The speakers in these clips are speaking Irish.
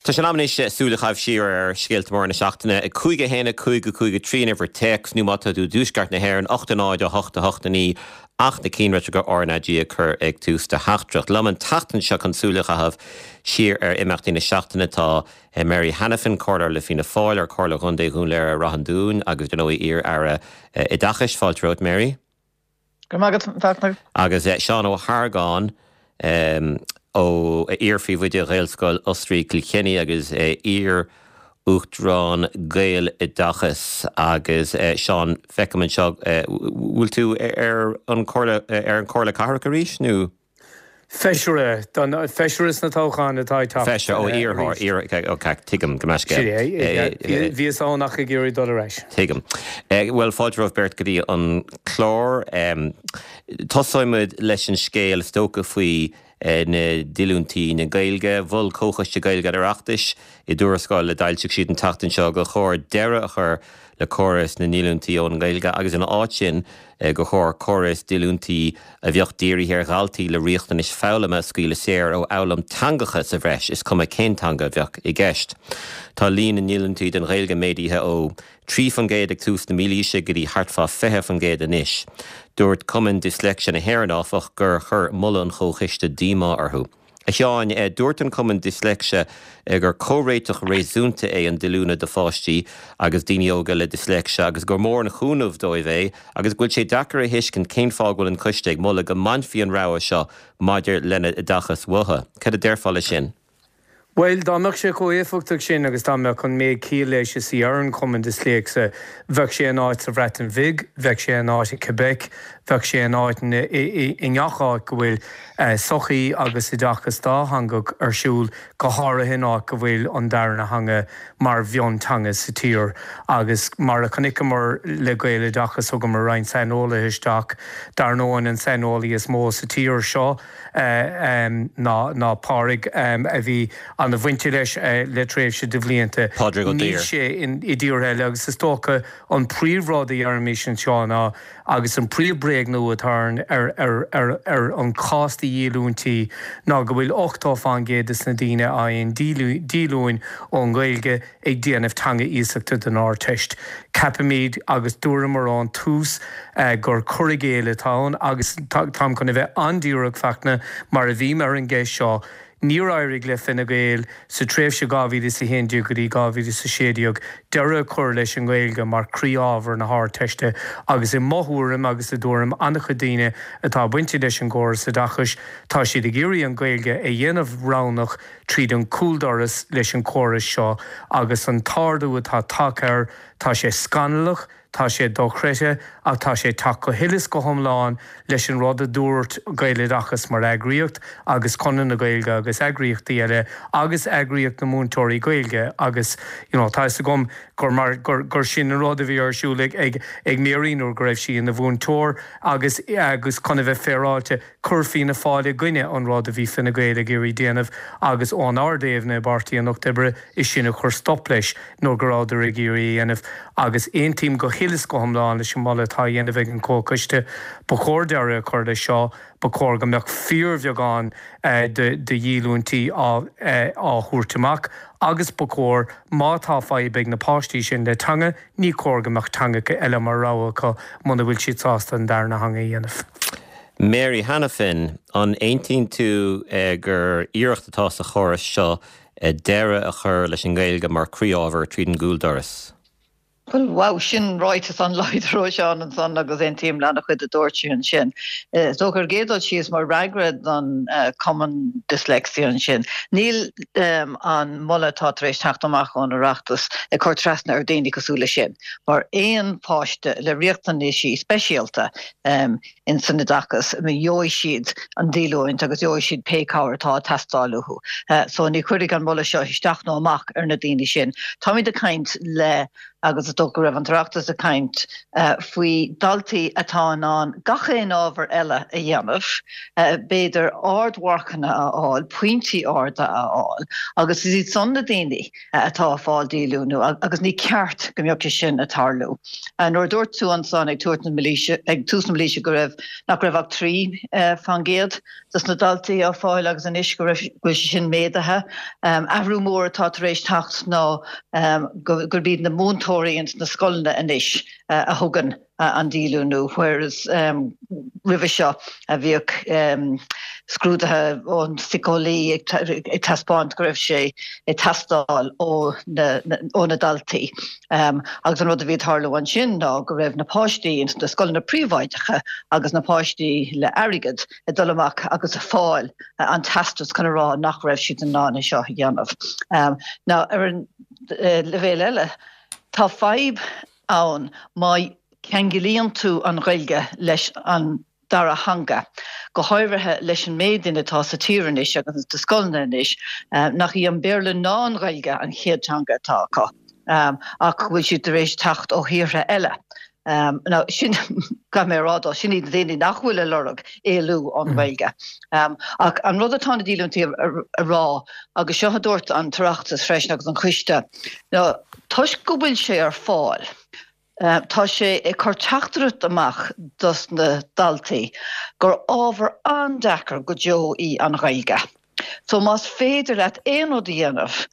Tá sé in am anois súil a chaitheamh siar ar scéalta móra na seachtaine. 5, 1, 5, 5, 3 an uimhir téacs nó má tá tú i dtuaisceart na hÉireann, 8, 0, 8, 8, 9 ach na cinnlitreacha RnaG a chur ag tús do theachtaireacht. Liom an tseachtain seo chun súil a chaitheamh siar ar imeachtaí na seachtaine tá Mary Hanafin, Comhairleoir le Fianna Fáil ar Chomhairle Chontae Dhún Laoghaire Rath an Dúin agus dar ndóigh iar-aire Oideachais. Fáilte romhat Mary. Go raibh maith agat, a Fhachtna. Agus Seán Ó hArgáin, ó iar-phríomhoide Ghaelscoil Osraí Kilkenny agus iar-Uachtarán Gaeloideachas. Agus Seán, feicim anseo, bhfuil tú ar an Chomhairle, ar an Chomhairle Cathrach arís nó? Feisire, don feisire sna toghcháin atá ag teacht Feisire, ó iarrthóir, iar, ok, tuigim, gabh mo leithscéal. Sin é, bhíos ann ach ag iarraidh dul ar ais. Tuigim. Bhuel, fáilte romhaibh beirt go dtí an clár. Tosóidh muid leis an scéal is dócha faoi na díolúintí na Gaeilge. Mhol Comhchoiste Gaeilge an Oireachtais i dtuarascáil a d'fhoilsigh siad an tseachtain seo gur chóir deireadh a chur le córas na ndíolúintí ón nGaeilge agus ina áit sin gur chóir córas díolúintí a bheadh dírithe ar dhaltaí le riachtanais foghlama a scaoileadh saor ó fhoghlaim teangacha sa bhreis, is cuma cén teanga a bheadh i gceist. Tá líon na ndíolúintí don Ghaeilge méadaithe ó 3% ag tús na mílaoise go dtí thart fá 20% anois. Dúirt Cumann Disléicse na hÉireann, áfach, gur chuir moladh an Chomhchoiste díomá orthu. A Sheáin, dúirt an Cumann Disléicse gur comhréiteach réasúnta é an díolúine do pháistí agus daoine óga le disléicse agus gur mór an chúnamh dóibh é agus go bhfuil sé deacair a thuiscint cén fáth go bhfuil an coiste ag moladh go mbainfí an rogha seo maidir lena n-oideachas uathu. Cad a déarfá leis sin? Bhuel, dá mbeadh sé chomh éifeachtach sin agus dá mbeadh an méid ciall leis is a deireann Cumann Disléicse, bheadh sé in áit sa Bhreatain Bhig, bheadh sé in áit i Quebec, bheadh sé in áit i ngach áit go bhfuil sochaí agus oideachas dátheangach ar siúl, go háirithe in áit go bhfuil an darna theanga mar mhionteanga sa tír. Agus mar a chonaiceamar le Gaeloideachas, thugamar roinnt saineolaithe isteach, dar ndóigh an saineolaí is mó sa tír seo, ná Pádraig a bhí ana-bhainte leis le tréimhse de bhlianta. Pádraig Ó Níl Duibhir. sé i dtíortha eile agus is dócha an príomhrud a deirimís anseo ná, agus an príomh-bhréagnú atá ar an chás de dhíolúintí ná go bhfuil 80 fán gcéad de na daoine a fhaigheann díolúine ón nGaeilge ag déanamh teanga iasachta don Ardteist. Ceapaimid, agus dúramar ón tús, gur cur i gcéill atá ann agus táim chun a bheith an-díreach, Fachtna, mar a bhím ar an gceist seo, níor éirigh le Fine Gael sa tréimhse 2011 go dtí 2016 deireadh a chur leis an nGaeilge mar chroí-ábhar na hArdteiste agus i mo thuairim agus i dtuairim an-chuid daoine atá bainte leis an gcóras oideachais, tá siad ag iarraidh an Ghaeilge a dhéanamh roghnach tríd an gcúldoras leis an chóras seo agus an t-ardú atá tagtha air, tá sé scannalach, tá sé dochreidte ach tá sé ag teacht go huile is go hiomlán leis an rud a dúirt Gaeloideachas mar eagraíocht agus Conradh na Gaeilge agus eagraíochtaí eile agus eagraíocht na múinteoirí Gaeilge agus you know tá 'fhios agam gur mar gur gur sin an rud a bhí ar siúl ag ag ag Mary nuair go raibh sí ina mhúinteoir agus agus chun a bheith féaráilte Chuir Fianna Fáil i gcoinne an rud a bhí Fine Gael ag iarraidh déanamh agus ón Ard-Aighne i bPáirtí an Lucht Oibre is sin a chuir stop leis nuair go rabhadar ag iarraidh a dhéanamh agus aontaím go huile is go hiomlán leis an moladh atá á dhéanamh ag an Chomhchoiste. Ba chóir deireadh a chur leis seo. Ba chóir go mbeadh fíorbheagán de dhíolúintí á thabhairt amach agus ba chóir má tá fadhb ag na páistí sin le teanga, ní chóir go mbeadh teangacha eile mar rogha acu muna bhfuil siad sásta an darna theanga a dhéanamh. Mary Hanafin, An aontaíonn tú gur iarracht atá sa chóras seo deireadh a chur leis an nGaeilge mar chroí-ábhar tríd an gcúldoras? Bhuel, wow, sin ráiteas an-láidir ó Sheán ansan agus aontaím le an-chuid a dúirt sé ansin. Is dócha ar an gcéad dul síos mar fhreagra don Cumann Dyslexia ansin, níl an moladh atá tar éis teacht amach ón Oireachtas ag cur trasna ar daoine cosúil leis sin. Mar aon pháiste le riachtanaisí speisialta, in san oideachas, gheobhaidh siad an díolúint agus gheobhaidh siad pé cabhair atá ag teastáil uathu. So ní chuirfidh an moladh seo isteach nó amach ar na daoine sin. Táimid ag caint le. Agus is dócha go raibh an tOireachtas ag caint faoi daltaí atá in ann gach aon ábhar eile a dhéanamh, b'fhéidir ardmharcanna a fháil, pointí arda a fháil, agus is iad san na daoine atá ag fáil díolúnú agus ní ceart go mbeadh sé sin ag tarlú. Nuair a dúirt tú ansan ag tabhairt na mílaoise, ag tús na mílaoise go raibh, nach raibh ach 3% dos na daltaí á fáil agus anois go raibh, go bhfuil sé sin méadaithe. Athrú mór atá tar éis teacht ná gurb iad na múinteoirí ins na scoileanna anois a thugann an díolúnú whereas roimhe seo bhíodh scrúduithe ón síceolaí ag taispeáint go raibh sé ag teastáil ó na daltaí. Agus an rud a bhí ag tarlú ansin ná go raibh na páistí ins na scoileanna príobháideacha agus na páistí le airgead ag dul amach agus ag fáil an teastas chun a rá nach raibh siad in ann é seo a dhéanamh. Now ar an leibhéal eile, tá fadhb ann má cheanglaíonn tú an Ghaeilge leis an dara theanga, go háirithe leis an méid duine atá sa tír anois agus sna scoileanna anois nach í an Béarla ná an Ghaeilge an chéad teanga atá acu ach go bhfuil siad tar éis teacht ó thíortha eile. Now sin, caithfidh mé a rá dó, sin iad na daoine nach bhfuil ag lorg éalú ón Ghaeilge. Ach an rud atá na díolúintí a rá, agus seo a dúirt an tOireachtas freisin agus an Coiste, ná toisc go bhfuil sé ar fáil, Tá sé ag cur teachtaireacht amach dos na daltaí gur ábhar an-deacair go deo í an Ghaeilge. So más féidir leat aon rud a dhéanamh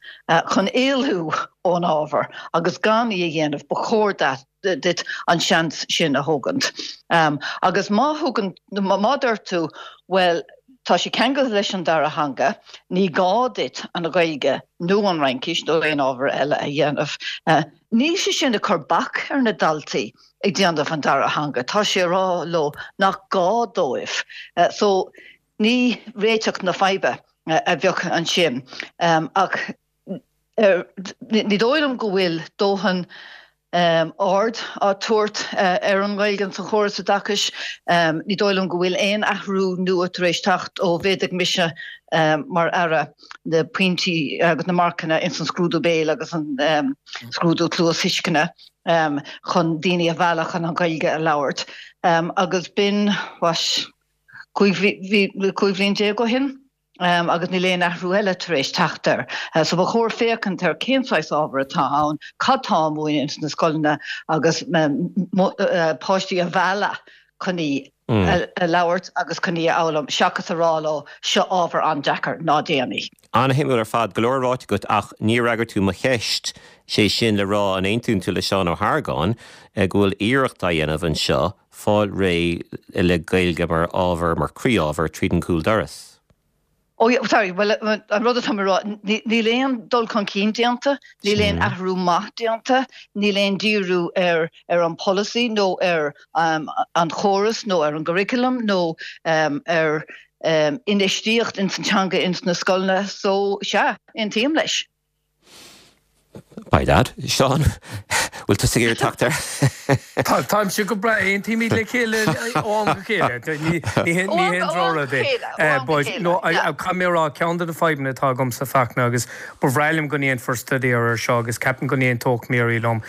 chun éalú ón ábhar agus gan í a dhéanamh, ba chóir duit an seans sin a thógaint. Agus má thugann, má deir tú, bhuel, tá sé ceangailte leis an dara theanga, ní gá duit an Ghaeilge nó an Fhraincis nó aon ábhar eile a dhéanamh, Níl sé sin ag cur bac ar na daltaí ag déanamh an dara theanga, tá sé ag rá leo nach gá dóibh. So ní réiteach na faidhbe a bheadh ansin ach ní dóigh liom go bhfuil dóthain aird á tabhairt ar an nGaeilge sa chóras oideachais. Ní dóigh liom go bhfuil aon athrú nua tar éis teacht ó mhéadaigh mise mar Aire. na pointí agus na marcanna ins an scrúdú béil agus an scrúdú cluasthuisceana chun daoine a mhealladh chun an Ghaeilge a labhairt. Agus b'in, what, 15 bhliain ó shin agus níl aon athrú eile tar éis teacht air. So ba chóir féachaint ar cén saghas ábhar atá ann, cad tá á múineadh ins na scoileanna agus páistí a mhealladh chun í a labhairt agus chun í a fhoghlaim, seachas a rá leo, seo ábhar an-deacair, ná déan í. An-shuimiúil ar fad, go leor ráite agat ach níor fhreagair tú mo cheist, sé sin le rá an aontaíonn tú le Seán Ó hArgáin go bhfuil iarracht á dhéanamh anseo fáil réidh le Gaeilge mar ábhar, mar croí-ábhar tríd an gcúl doras? Oh yeah, sorry, bhuel an rud atá mé a rá, níl aon dul chun cinn déanta, níl aon athrú maith déanta, níl aon díriú ar ar an polasaí nó ar an chóras nó ar an gcurriculum nó ar infheistíocht ins an teanga ins na scoileanna, so sea, aontaím leis. By dad. Seán, bhfuil tusa ag iarraidh teacht air? Táimse go breá, aontaímid le chéile ó am go chéile. Ní haon drochrud é. But no, caithfidh mé a rá, ceann de na fadhbanna atá agamsa Fachtna, agus ba bhreá liom go ndéanfar staidéar air seo agus ceapaim go n-aontódh Mary liom,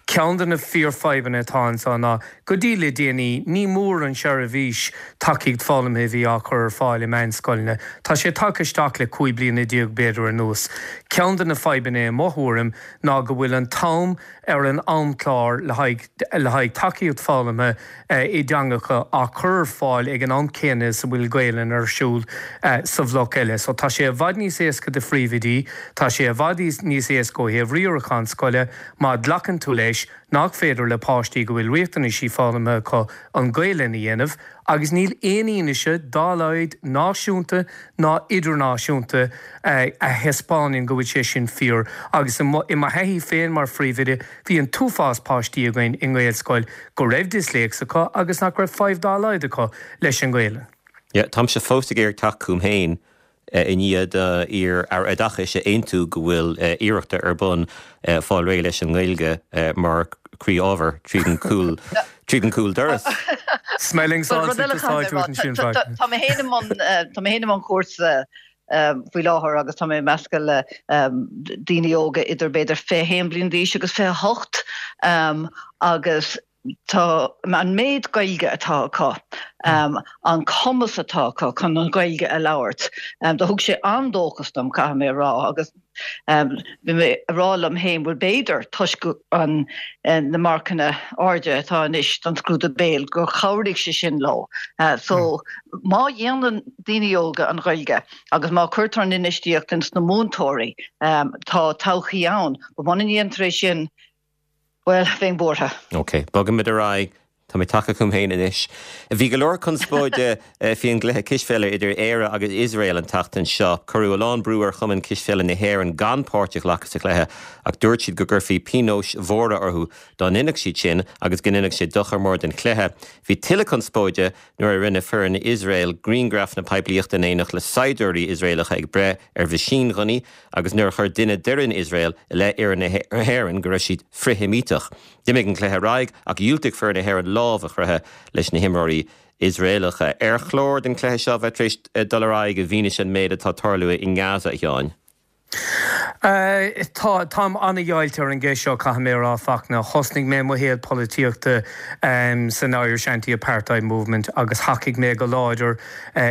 ceann de na fíorfhadhbanna atá anseo ná Go dtí le déanaí, ní mór an seirbhís tacaíocht foghlamtha a bhí á cur ar fáil i meánscoileanna. Tá sé tagtha isteach le 15 bliana b'fhéidir anuas. Ceann de na fadhbanna i mo thuairim ná go bhfuil an t-am ar an amchlár le haghaidh le haghaidh tacaíocht foghlamtha i dteangacha á cur ar fáil ag an am céanna is a bhfuil Gaelainn ar siúl sa bhloc eile. So tá sé i bhfad níos éasca do phríomhoidí, tá sé i bhfad níos éasca ó thaobh riarachán scoile má ghlacann tú leis nach féidir le páistí go bhfuil riachtanaisí foghlamtha acu an Ghaelainn a dhéanamh agus níl aon fhianaise dá laghad náisiúnta ná idirnáisiúnta a thaispeánann go bhfuil sé sin fíor agus i mo thaithí féin mar phríomhoide bhí an t-uafás páistí againn i nGaelscoil go raibh disléicse acu agus nach raibh fadhb dá laghad acu leis an nGaelainn. Yeah, táimse fós ag iarraidh teacht chugam féin i ndiaidh d'iar-Aire Oideachais a aontú go bhfuil iarrachta ar bun fáil réidh leis an nGaeilge mar chroí-ábhar tríd an gcúl tríd an gcúl doras. Smelling salts ag úsáid ansin. Tá mé féin i mbun tá mé féin i mbun cúrsa. faoi láthair agus tá mé ag meascadh le daoine óga idir b'fhéidir 21 bliain d'aois agus 28 agus tá an méid Gaeilge atá acu, an cumas atá acu chun an Ghaeilge a labhairt, do thug sé an-dóchas dom, caithfidh mé a rá, agus bhí mé a rá liom féin, bhuel b'fhéidir toisc an na marcanna airde atá anois don scrúdú béil gur chabhraigh sé sin leo. So má dhéanann daoine óga an Ghaeilge agus má cuirtear an infheistíocht ins na múinteoirí, tá todhchaí ann. But muna ndéantar é sin, Bhuel, bheinn buartha. Ok, bogfaimid ar aghaidh. Tá mé tagtha chugam féin anois. Bhí go leor conspóide faoi an gcluiche cispheile idir Éire agus Iosrael an tseachtain seo. Cuireadh a lán brú ar Chumann Cispheile na hÉireann gan páirt a ghlacadh sa chluiche ach dúirt siad go gcuirfí pionóis mhóra orthu dá ndéanfadh siad sin agus go ndéanfadh sé dochar mór don chluiche. Bhí tuilleadh conspóide nuair a rinne foireann Iosrael grianghrafanna poiblíochta in éineacht le saighdiúirí Iosraelacha ag breith ar mheaisínghunnaí agus nuair a chuir duine d'fhoireann Iosrael i leith fhoireann na hÉireann go raibh siad frith-Sheimíteach. D'imigh an cluiche ar aghaidh ach dhiúltaigh foireann na hÉireann lámh a chroitheadh leis na himreoirí Iosraelacha. Ar chóir don chluiche seo bheith tar éis dul ar aghaidh i bhfianaise an méid atá ag tarlú i nGaza, a Sheáin? Tá, táim an-dheighilte ar an gceist seo, caithfidh mé a rá, Fachtna. Thosnaigh mé mo shaol polaitíochta san Irish Anti-Apartheid Movement agus thacaigh mé go láidir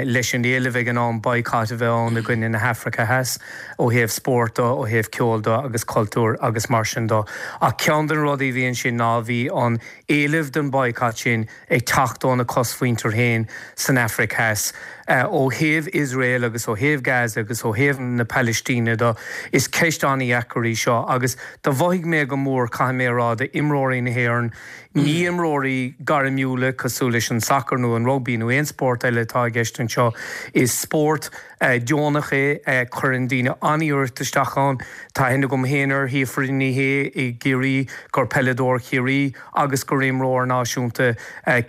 leis an éileamh ag an am boycott a bheith ann i gcoinne na hAfraice Theas ó thaobh spóirt de, ó thaobh ceoil de agus cultúir agus mar sin de. Ach ceann de na rudaí a bhí ansin ná bhí an éileamh don boycott sin ag teacht óna cosmhuintir féin san Afraic Theas. Ó thaobh Iosrael agus ó thaobh Gaza agus ó thaobh na Palaistíne de, is ceist an-dheacair í seo agus do mhothaigh mé go mór, caithfidh mé a rá, d'imreoirí na hÉireann, Ní imreoirí gairmiúla cosúil leis an sacar nó an rugbaí nó aon spórt eile atá i gceist anseo. Is spórt deonach é, cuireann daoine an-iarracht isteach ann. Tá aithne agam féin ar Shíofra Ní Shé i gCiarraí, gur peileadóir Chiarraí agus gur imreoir náisiúnta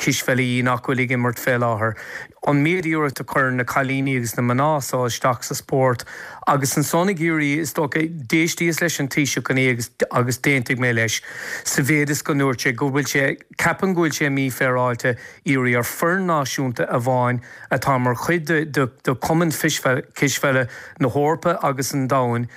cispheile í nach bhfuil ag imirt fé láthair. An méid iarracht a chuireann na cailíní agus na mná so isteach sa spórt agus ansan ag iarraidh, is dócha, d'éistíos leis an Taoiseach inné agus agus d'aontaigh mé leis sa mhéid is go ndúirt sé go bhfuil sé, ceapaim go bhfuil sé mífhéaráilte iarraidh ar foireann náisiúnta amháin atá mar chuid de de de Chumann Cispheile na hEorpa agus an Domhain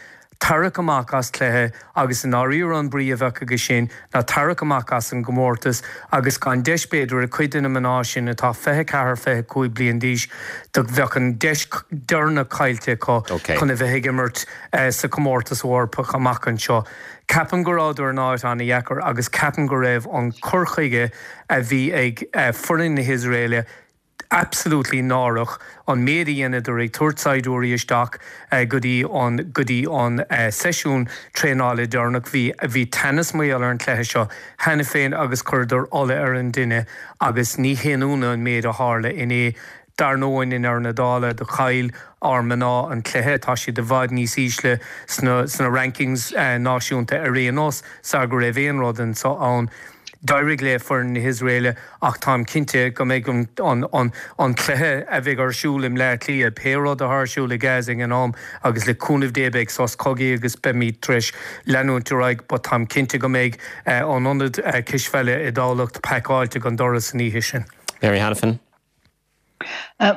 tarrac amach as cluiche agus i ndáiríre an brí a bheadh aige sin ná tarrac amach as an gcomórtas agus gan deis b'fhéidir ag cuid de na mná sin atá 24, 25 bliain d'aois do bheadh an deis deireanach caillte acu chun a bheith ag imirt sa chomórtas Eorpach amach anseo. Ceapaim go rabhadar in áit an-dheacair agus ceapaim go raibh an cur chuige a bhí ag foireann na hIosraeile absolutely náireach an méid a dheineadar ag tabhairt saighdiúirí isteach go dtí an go dtí an seisiún traenála deireanach. Bhí bhí teannas mar gheall ar an chluiche seo cheana féin agus chuireadar ola ar an dtine agus ní haon ionadh an méid a tharla inné. Dar ndóigh i ndeireadh na dála do chaill ár mná an cluiche. Tá siad i bhfad níos ísle sna sna rankings náisiúnta ar aon nós sar go raibh aon rud anso ann. D'éirigh le foireann na hIosraeile ach táim cinnte go mbeidh an cluiche a bheidh ar siúl i mBleá Cliath, pé rud atá ar siúl i Gaza ag an am, agus le cúnamh Dé beidh sos cogaidh agus beimid tar éis leanúint ar aghaidh, but táim cinnte go mbeidh an ionad cispheile i dTamhlacht pacáilte go doras an oíche sin. Mary Hanafin.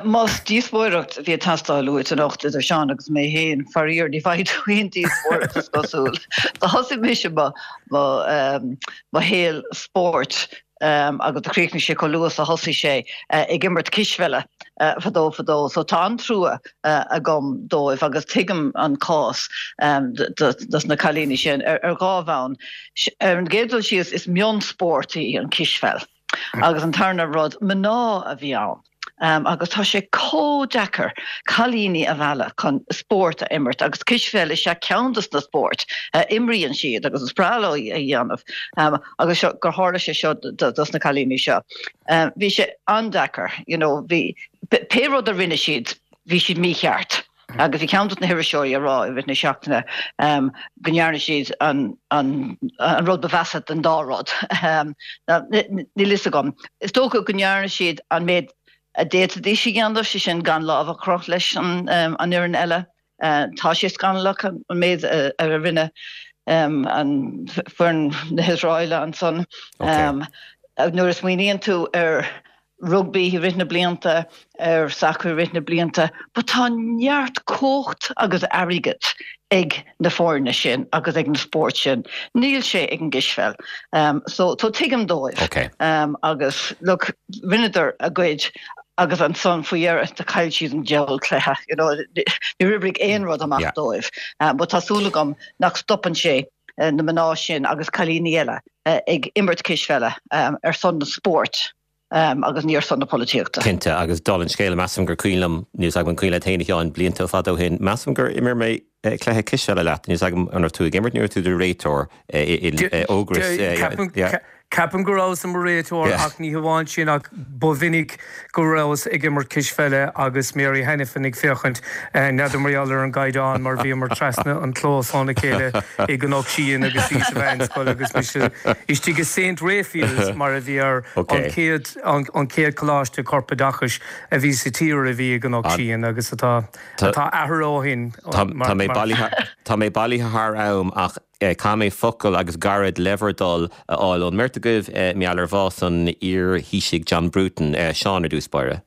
Más díospóireacht a bhí ag teastáil uait anocht idir Seán agus mé féin, faraor ní bhfaighidh tú aon díospóireacht is cosúil. Do thosaigh mise mo mo shaol spóirt agus do chríochnaigh sé chomh luath is a thosaigh sé ag imirt cispheile fadó fadó. So tá an-trua agam dóibh agus tuigim an cás dos na cailíní sin ar dhá bhonn. Ar an gcéad dul síos is mionspórt í an cispheil. Agus an tarna rud, mná a bhí ann. Agus tá sé chomh deacair cailíní a mhealladh chun spórt a imirt agus cispheil is ea ceann dos na spóirt a imríonn siad agus is breá leo a dhéanamh agus seo gur tharla sé seo dos na cailíní seo. Bhí sé an-deacair, you know, bhí pé rud a rinne siad, bhí siad mícheart. Agus bhí ceann dos na hiriseoirí ag rá i rith na seachtaine go ndearna siad an rud ba mheasa den dá rud. Níl fhios agam. Is dócha go ndearna siad an méid a d'fhéadfaidís a dhéanamh, sé sin gan lámh a chroitheadh leis an fhoireann eile. Tá sé scannalach an méid a rinne an foireann na hIosraeile ansan. Nuair a smaoiníonn tú ar. rugbaí i rith na blianta, ar sacar i rith na blianta, but tá neart cumhacht agus airgead ag na foirne sin agus ag na spóirt sin. Níl sé ag an gcispheil. So so tuigim dóibh. Okay. Agus look, rinneadar a gcuid agus ansan faoi dheireadh do chaill siad an diabhal cluiche, you know, níor oibrigh aon rud amach Yeah. dóibh. But tá súil agam nach stopann sé na mná sin agus cailíní eile ag imirt cispheile ar son na spóirt agus ní ar son na polaitíochta. Cinnte, agus dála an scéil, measaim gur cuimhin liom, níl 's agam an cuimhin leat féin a Sheáin, blianta fada ó shin, measaim gur imir mé cluiche cispheile leat, níl 's agam an raibh tú ag imirt nó an raibh tú i do réiteoir in Ógras. Ceapaim go rabhas i mo réiteoir ach ní hamháin sin ach ba mhinic go rabhas ag imirt cispheile agus Mary Hanafin ag féachaint, n'fheadar mar gheall ar an gcaighdeán mar bhíomar trasna an clós óna chéile i gCnoc Síon agus í sa mheánscoil agus mise istigh i Saint Raphael's mar a bhí air, an chéad an chéad choláiste corpoideachais a bhí sa tír a bhí i gCnoc Síon agus atá atá athraithe ó shin mar Tá mé bailithe tá mé bailithe thar am ach Caithfidh mé focal agus gairid le bhur dtoil a fháil ón mbeirt agaibh mar gheall ar bhás an iar-Thaoisigh John Bruton. Seán ar dtús báire.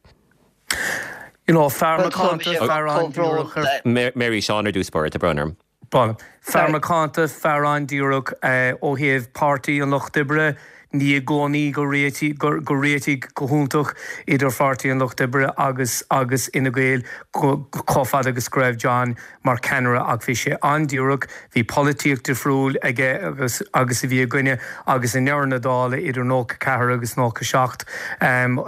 You know, fear macánta, fear an-díreach ar. Mary, Seán ar dtús báire, tá brón orm. Bhuel, fear macánta, fear an-díreach ó thaobh Páirtí an Lucht Oibre, ní i gcónaí gur réitigh, gur réitigh go hiontach idir Pháirtí an Lucht Oibre agus agus Fhine Gael chomh fada agus go raibh John mar cheannaire ach bhí sé an-díreach, bhí polaitíocht difriúil aige agus agus a bhí againne agus i ndeireadh na dála idir 94 agus 97 an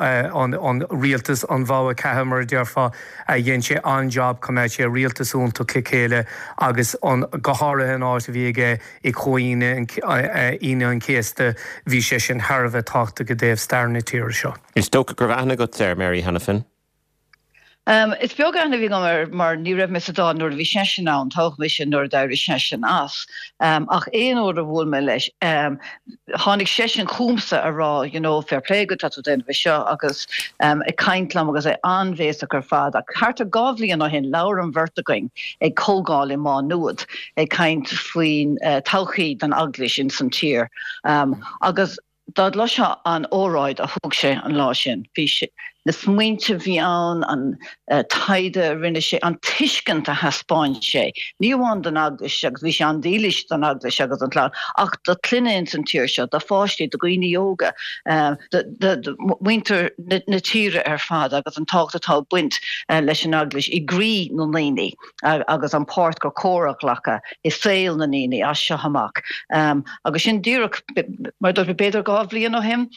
an rialtas an bhogha ceatha mar a déarfá dhein sé an-jab choimeád sé rialtas iontach le chéile agus an go háirithe an áit a bhí aige i Comhaoine Aoine an Chéasta bhí sé sin thar a bheith tábhachtach i dtaobh stair na tíre seo. Is dócha go raibh aithne agat air, Mary Hanafin? Is beag aithne a bhí agam air mar ní raibh mé sa Dáil nuair a bhí seisean ann, toghadh mise nuair a d'éirigh seisean as. Ach aon uair a bhuail mé leis, tháinig seisean chugamsa a rá you know fair play agat, tá tú ag déanamh é seo agus ag caint liom agus é an-bhéasach ar fad. Ach thart ar 2 bhliain ó shin labhair an bheirt againn ag comhdháil i Má Nuad ag caint faoin todhchaí don Eaglais ins an tír agus Dá gcloisfeá an óráid a thug sé an lá sin, bhí sé, na smaointe a bhí ann, an taighde a rinne sé, an tuiscint a thaispeáin sé, ní amháin don Eaglais, agus bhí sé an-dílis don Eaglais agus don chlann, ach do chlanna ins an tír seo, do pháistí, do dhaoine óga, do mhuintir na tíre ar fad agus an tábhacht atá ag baint leis an Eaglais i gcroí na ndaoine. agus an páirt gur cóir a ghlacadh i saol na ndaoine as seo amach. Agus sin díreach, mar a dúirt mé, b'fhéidir 2 bhliain ó shin,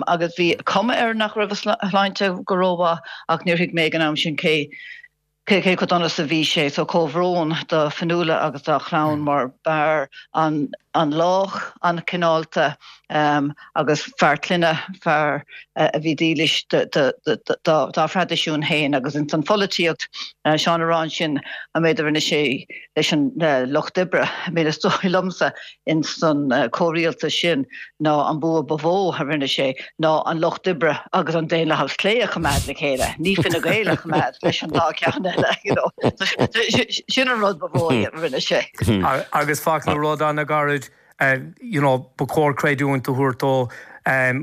agus bhí cuma air nach raibh a shláinte go rómhaith ach níor thuig mé ag an am sin cé cé chomh dona is a bhí sé. So comhbhrón do Fionnuala agus dá chlann mar b'fhear an-lách, an-chineálta agus fear clainne, fear a bhí dílis dá thraidisiún féin agus ins an pholaitíocht, Seán a rá ansin an méid a rinne sé leis an Lucht Oibre, I mean is dóigh liomsa ins an comhrialtas sin ná an bua ba mhó a rinne sé ná an Lucht Oibre agus an Daonlathas Clé a choimeád le chéile, ní Fine Gael a choimeád leis an dá cheann eile, you know. Sin an rud ba mhó a rinne sé. Agus fágfaidh mé rud an-ghairid, you know, ba chóir creidiúint a thabhairt dó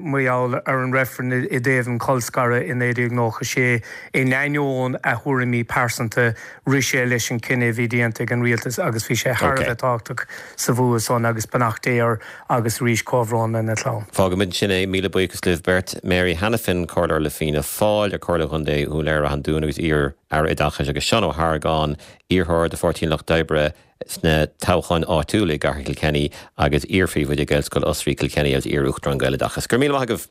mar gheall ar an reifreann i dtaobh an cholscaradh i 1996. In ainneoin a thuairimí pearsanta, rith sé leis an cinneadh a bhí déanta ag an rialtas agus bhí sé thar a bheith tábhachtach sa bhua san agus beannacht Dé air agus arís comhbhrón lena chlann. Fágfaimid ansin é. Míle buíochas libh beirt. Mary Hanafin, Comhairleoir le Fianna Fáil ar Comhairle Chontae Dhún Laoghaire-Ráth an Dúin agus iar-Aire Oideachais agus Seán Ó hArgáin, iarrthóir do Pháirtí an Lucht Oibre sna toghcháin áitiúla i gCathair Kilkenny agus iar-phríomhoide Gaelscoil Osraí Kilkenny agus iar-Uachtarán Gaeloideachas. Go raibh míle maith agaibh!